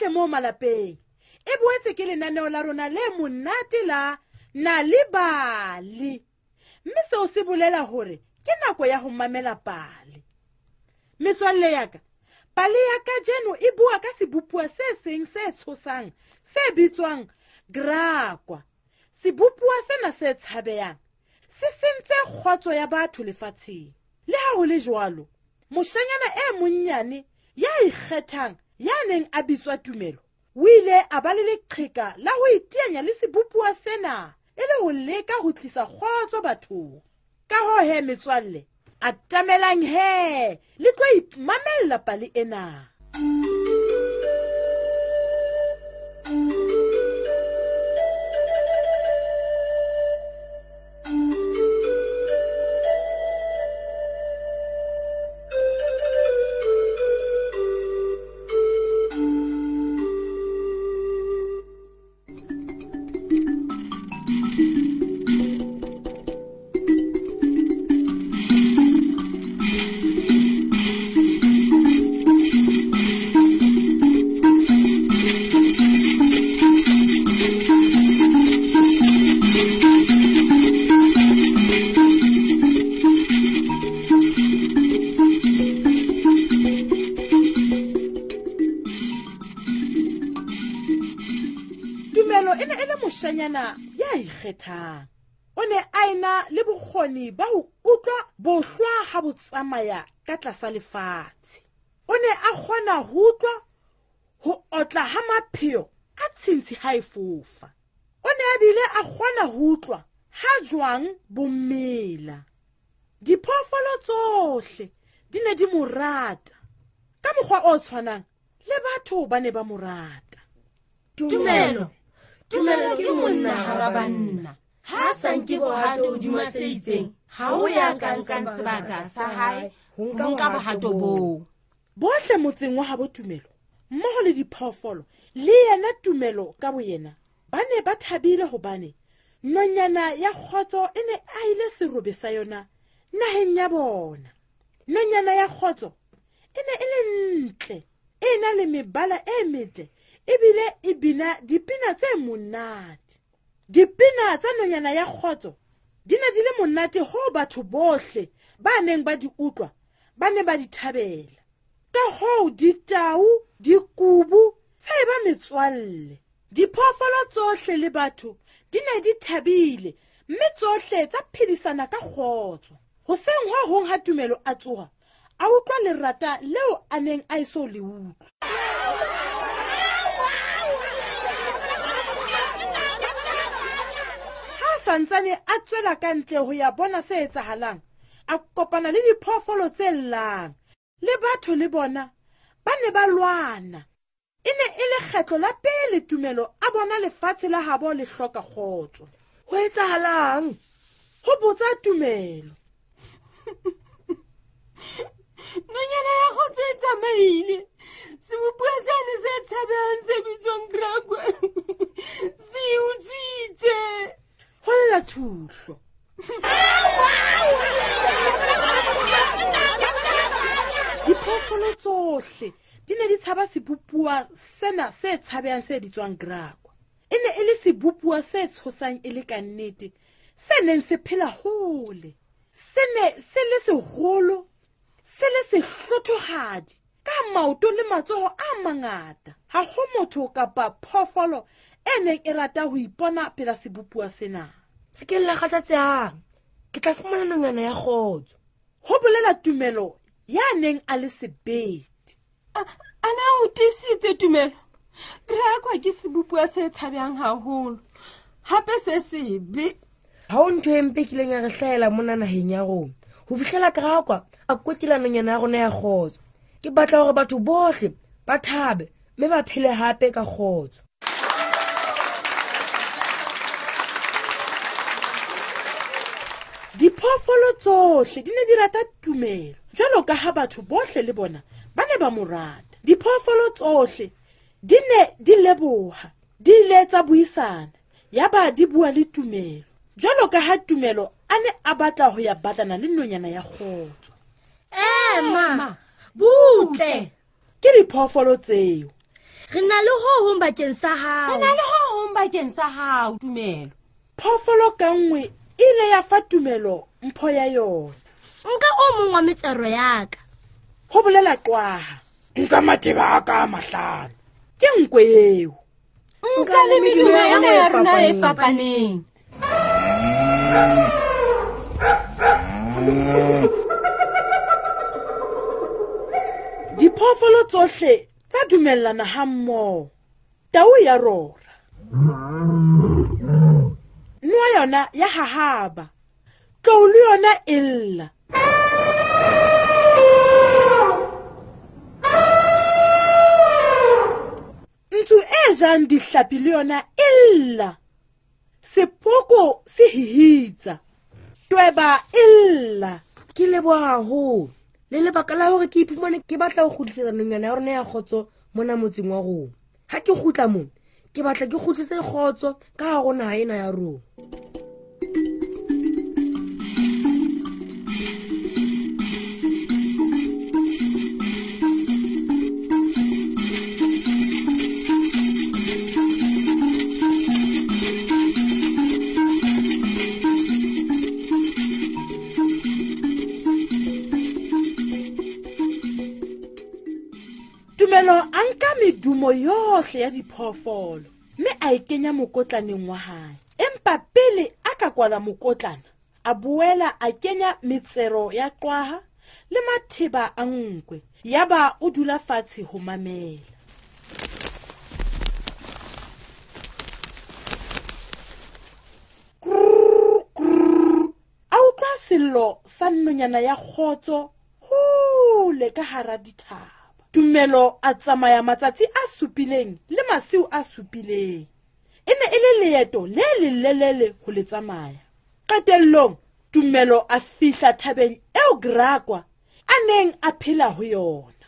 Hohle moo malapeng. E boetse ke lenaneo la rona le monate la Nal'ibali. Mme seo se bolela hore ke nako ya ho mamela pale. Metswalle ya ka, pale ya kajeno e bua ka sebopuwa se seng se tshosang se bitswang Grakwa. Sebopuwa sena se tshabehang se sentse kgotso ya batho lefatsheng. Le ha ho le jwalo, moshanyana e monnyane ya ikgethang ya neng a bitswa Tumelo o ile a ba le leqheka la ho iteanya le sebopuwa sena e le ho leka ho tlisa kgotso bathong. Ka hoo he metswalle, atamelang he le tlo imamella pale ena. Tumelo e ne e le moshanyana ya ikgethang. O ne a ena le bokgoni ba ho utlwa bohlwa ha bo tsamaya ka tlasa lefatshe. O ne a kgona ho utlwa ho otla ha mapheo a tshintshi ha e fofa. O ne a bile a kgona ho utlwa ha jwang bo mela. Diphoofolo tsohle di ne di mo rata. Ka mokgwa o tshwanang le batho ba ne ba mo rata. Tumelo, Tumelo ke monna hara banna. Ha a sa nke bohato hodima se itseng, ha ho ya ka nkang sebaka sa hae ho nka bohato boo. Bohle motseng wa habo Tumelo, mmoho le diphoofolo, le yena Tumelo ka boyena, ba ne ba thabile hobane nonyana ya kgotso e ne ahile serobe sa yona naheng ya bona. Nonyana ya kgotso e ne e le ntle, e na le mebala e metle, ebile e bina dipina tse monate. Dipina tsa nonyana ya kgotso di ne di le monate hoo batho bohle ba neng ba di utlwa ba ne ba di thabela. Ka hoo ditau, dikubu tsa eba metswalle. Diphoofolo tsohle le batho di ne di thabile, mme tsohle tsa phedisana ka kgotso. Hoseng ho hong ha Tumelo a tsoha, a utlwa lerata leo a neng a eso le utlwe. Ha a santsane a tswela ka ntle ho ya bona se etsahalang, a kopana le diphoofolo tse llang, le batho le bona ba ne ba lwana. E ne e le kgetlo la pele Tumelo a bona lefatshe la habo le hloka kgotso. Ho etsahalang? Ho botsa Tumelo. Nonyana ya kgotso e tsamaile. Sebopuwa sane se tshabehang se bitswang Grakwa se utswitse. Ho lla Thuhlo. Diphoofolo tsohle di ne di tshaba sebopuwa sena se tshabehang se bitswang Grakwa. E ne e le sebopuwa se tshosang e le ka nnete, se neng se phela hole. Se ne se le seholo, se le sehlothohadi, ka maoto le matsoho a mangata. Ha ho motho kapa phoofolo e neng e rata ho ipona pela sebopuwa sena. Se ke la kgathatsehang, ke tla fumana nonyana ya kgotso. Ho bolela Tumelo ya neng a le sebete. Ana o tiisitse Tumelo? Grakwa ke sebopuwa se tshabehang haholo, hape se sebe. Ha ho ntho e mpe kileng ya re hlahela mona naheng ya rona. Ho fihlela Grakwa a kwetela nonyana ya rona ya kgotso. Ke batla hore batho bohle ba thabe mme ba phele hape ka kgotso. Diphoofolo tsohle di ne di rata Tumelo, jwalo ka ha batho bohle le bona ba ne ba mo rata. Diphoofolo tsohle di ne di leboha, di ile tsa buisana, yaba di bua le Tumelo, jwalo ka ha Tumelo a ne a batla ho ya batlana le nonyana ya kgotso. Ema, butle! Ke diphoofolo tseo. Re na le ho hong bakeng sa hao. Re na le ho hong bakeng sa hao, Tumelo. Phoofolo ka nngwe e ile ya fa Tumelo mpho ya yona. Nka o mong wa metsero ya ka. Ho bolela qwaha. Nka matheba a ka a mahlano. Ke nkwe eo. Nka le medumo ena ya rona e fapaneng. Diphoofolo tsohle tsa dumellana ha mmoho. Tau ya rora. Noa yona ya hahaba. Tlou le yona e lla. Ntsu e jang dihlapi le yona e lla. Sepoko se hihitsa. Tweba e lla. Ke leboha haholo. Le lebaka la hore ke iphumane ke batla ho kgutlisetsa nonyana ya rona ya kgotso mona motseng wa rona. Ha ke kgutla mo, ke batla ke kgutlise kgotso ka hare ho naha ena ya rona. Tumelo a nka medumo yohle ya diphoofolo mme a e kenya mokotlaneng wa hae. Empa pele a ka kwala mokotlana, a boela a kenya metsero ya qwaha le matheba a nkwe. Yaba o dula fatshe ho mamela. Krrr, krrr. A utlwa sello sa nonyana ya kgotso hole ka hara dithaba. Tumelo a tsamaya matsatsi a supileng le masiu a supileng. E ne e le leeto le lelelele ho le tsamaya. Qetellong, Tumelo a fihla thabeng eo Grakwa a neng a phela ho yona.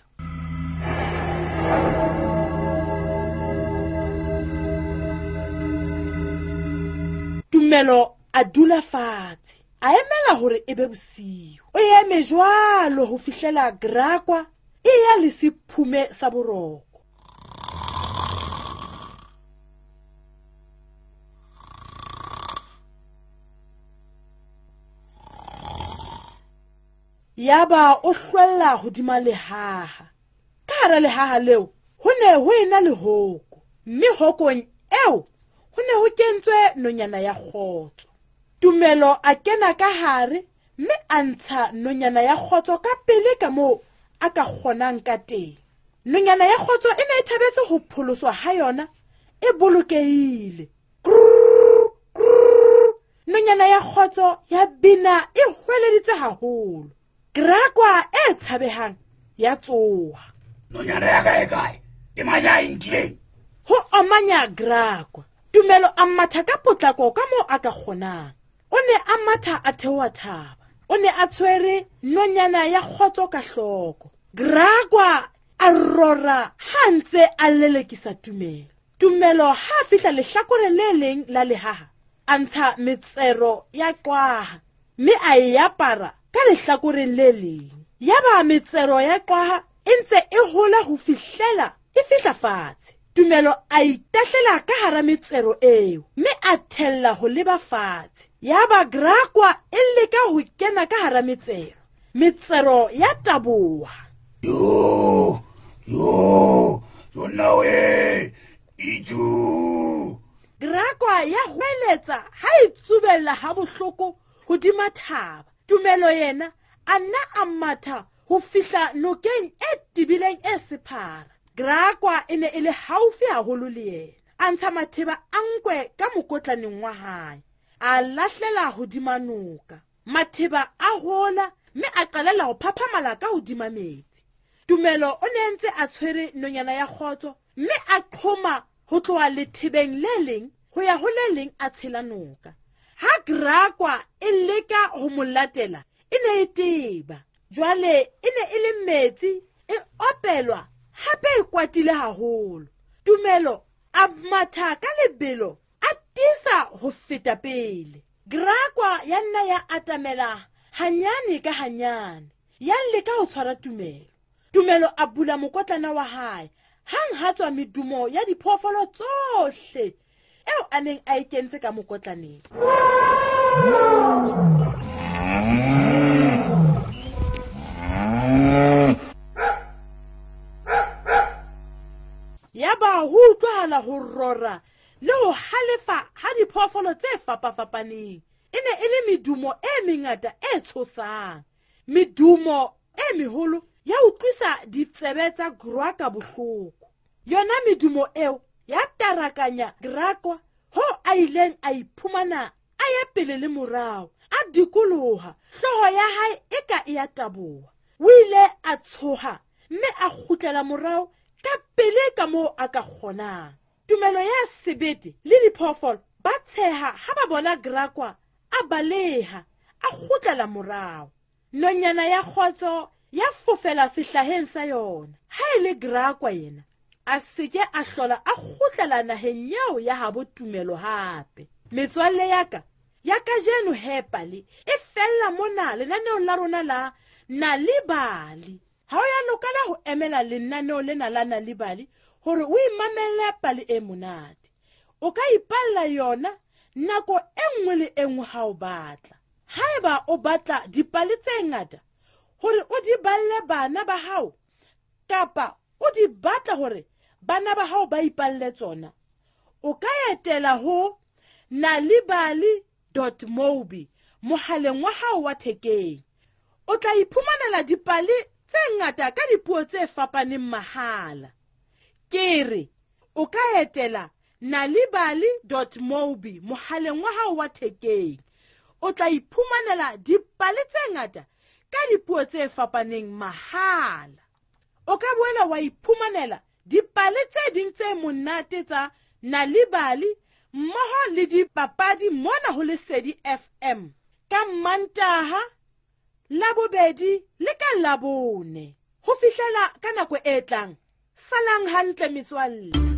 Tumelo a dula fatshe, a emela hore e be bosiu. O eme jwalo ho fihlela Grakwa e ya le sephume sa boroko. Yaba o hlwella hodima lehaha. Ka hara lehaha leo ho ne ho ena le hoko, mme hokong eo ho ne ho kentswe nonyana ya kgotso. Tumelo a kena ka hare mme a ntsha nonyana ya kgotso ka pele ka moo a ka kgonang ka teng. Nonyana ya kgotso e ne e thabetse ho pholoswa ha yona e bolokehile. Krrr, krrr. Nonyana ya kgotso ya bina e hweleditse haholo. Grakwa e tshabehang ya tsoha. Nonyana ya ka e kae? Ke mang ya e nkileng? Ho omanya Grakwa. Tumelo a matha ka potlako ka moo a ka kgonang. O ne a matha a theoha thaba. O ne a tshwere nonyana ya kgotso ka hloko. Grakwa a rora ha ntse a lelekisa Tumelo. Tumelo ha a fihla lehlakoreng le leng la lehaha, a ntsha metsero ya qwaha mme a e apara ka lehlakoreng le leng. Yaba metsero ya qwaha e ntse e hola ho fihlela e fihla fatshe. Tumelo a itahlela ka hara metsero eo mme a thella ho leba fatshe. Yaba Grakwa e leka ho kena ka hara metsero. Metsero ya taboha. Yo, yo, yo nawe, iju. Grakwa ya hweletsa ha e tsubella ha bohloko hodima thaba. Tumelo yena a nna a matha ho fihla nokeng e tebileng e sephara. Grakwa e ne e le haufi haholo le yena. A ntsha matheba a nkwe ka mokotlaneng wa hae. A lahlela hodima noka. Matheba a hola mme a qalella ho phaphamala ka hodima metsi. Tumelo o ne ntse a tshwere nonyana ya kgotso mme a qhoma ho tloha lethebeng le leng ho ya ho le leng a tshela noka. Ha Grakwa e leka ho mo latela, e ne e teba. Jwale e ne e le metsi, e opelwa hape e kwatile haholo. Tumelo a matha ka lebelo, a tiisa ho feta pele. Grakwa ya nna ya atamela hanyane ka hanyane, ya leka ho tshwara Tumelo. Tumelo a bula mokotlana wa hae, Hang ha tswa medumo ya diphoofolo tsohle eo a neng a e kentse ka mokotlaneng. Yaba ho utlwahala ho rora le ho halefa ha diphoofolo tse fapafapaneng. E ne e le medumo e mengata e tshosang. Medumo e meholo ya utlwisa ditsebe tsa Graka bohloko. Yona medumo eo ya tarakanya Graka hoo a ileng a iphumana a ya pele le morao, a dikoloha, hlooho ya hae e ka e ya taboha. O ile a tshoha mme a kgutlela morao ka pele ka moo a ka kgonang. Tumelo ya sebete le diphoofolo ba tsheha ha ba bona Graka a baleha, a kgutlela morao. Nonyana ya kgotso ya fofela sehlaheng sa yona. Ha e le Graka yena, a seke a hlola a kgutlela naheng eo ya habo Tumelo hape. Metswalle ya ka ya kajeno he pale e fella mona lenaneong la rona la Nal'ibali. Ha o ya lokela ho emela lenaneo lena la Nal'ibali hore o imamelle pale e monate. O ka ipalla yona nako e nngwe le e nngwe ha o batla. Haeba o batla dipale tse ngata hore o di balle bana ba hao, kapa o di batla hore bana ba hao ba ipalle tsona, o ka etela ho nalibali.mobi mohaleng wa hao wa thekeng. O tla iphumanela dipale tse ngata ka dipuo tse fapaneng mahala. Ke re o ka etela nalibali.mobi mohaleng wa hao wa thekeng. O tla iphumanela dipale tse ngata ka dipuo tse fapaneng mahala. O ka boela wa iphumanela dipale tse ding tse monate tsa Nal'ibali mmoho le dipapadi mona ho Lesedi FM ka Mantaha, Labobedi le ka Labone. Ho fihlela ka nako e tlang, salang hantle metswalle.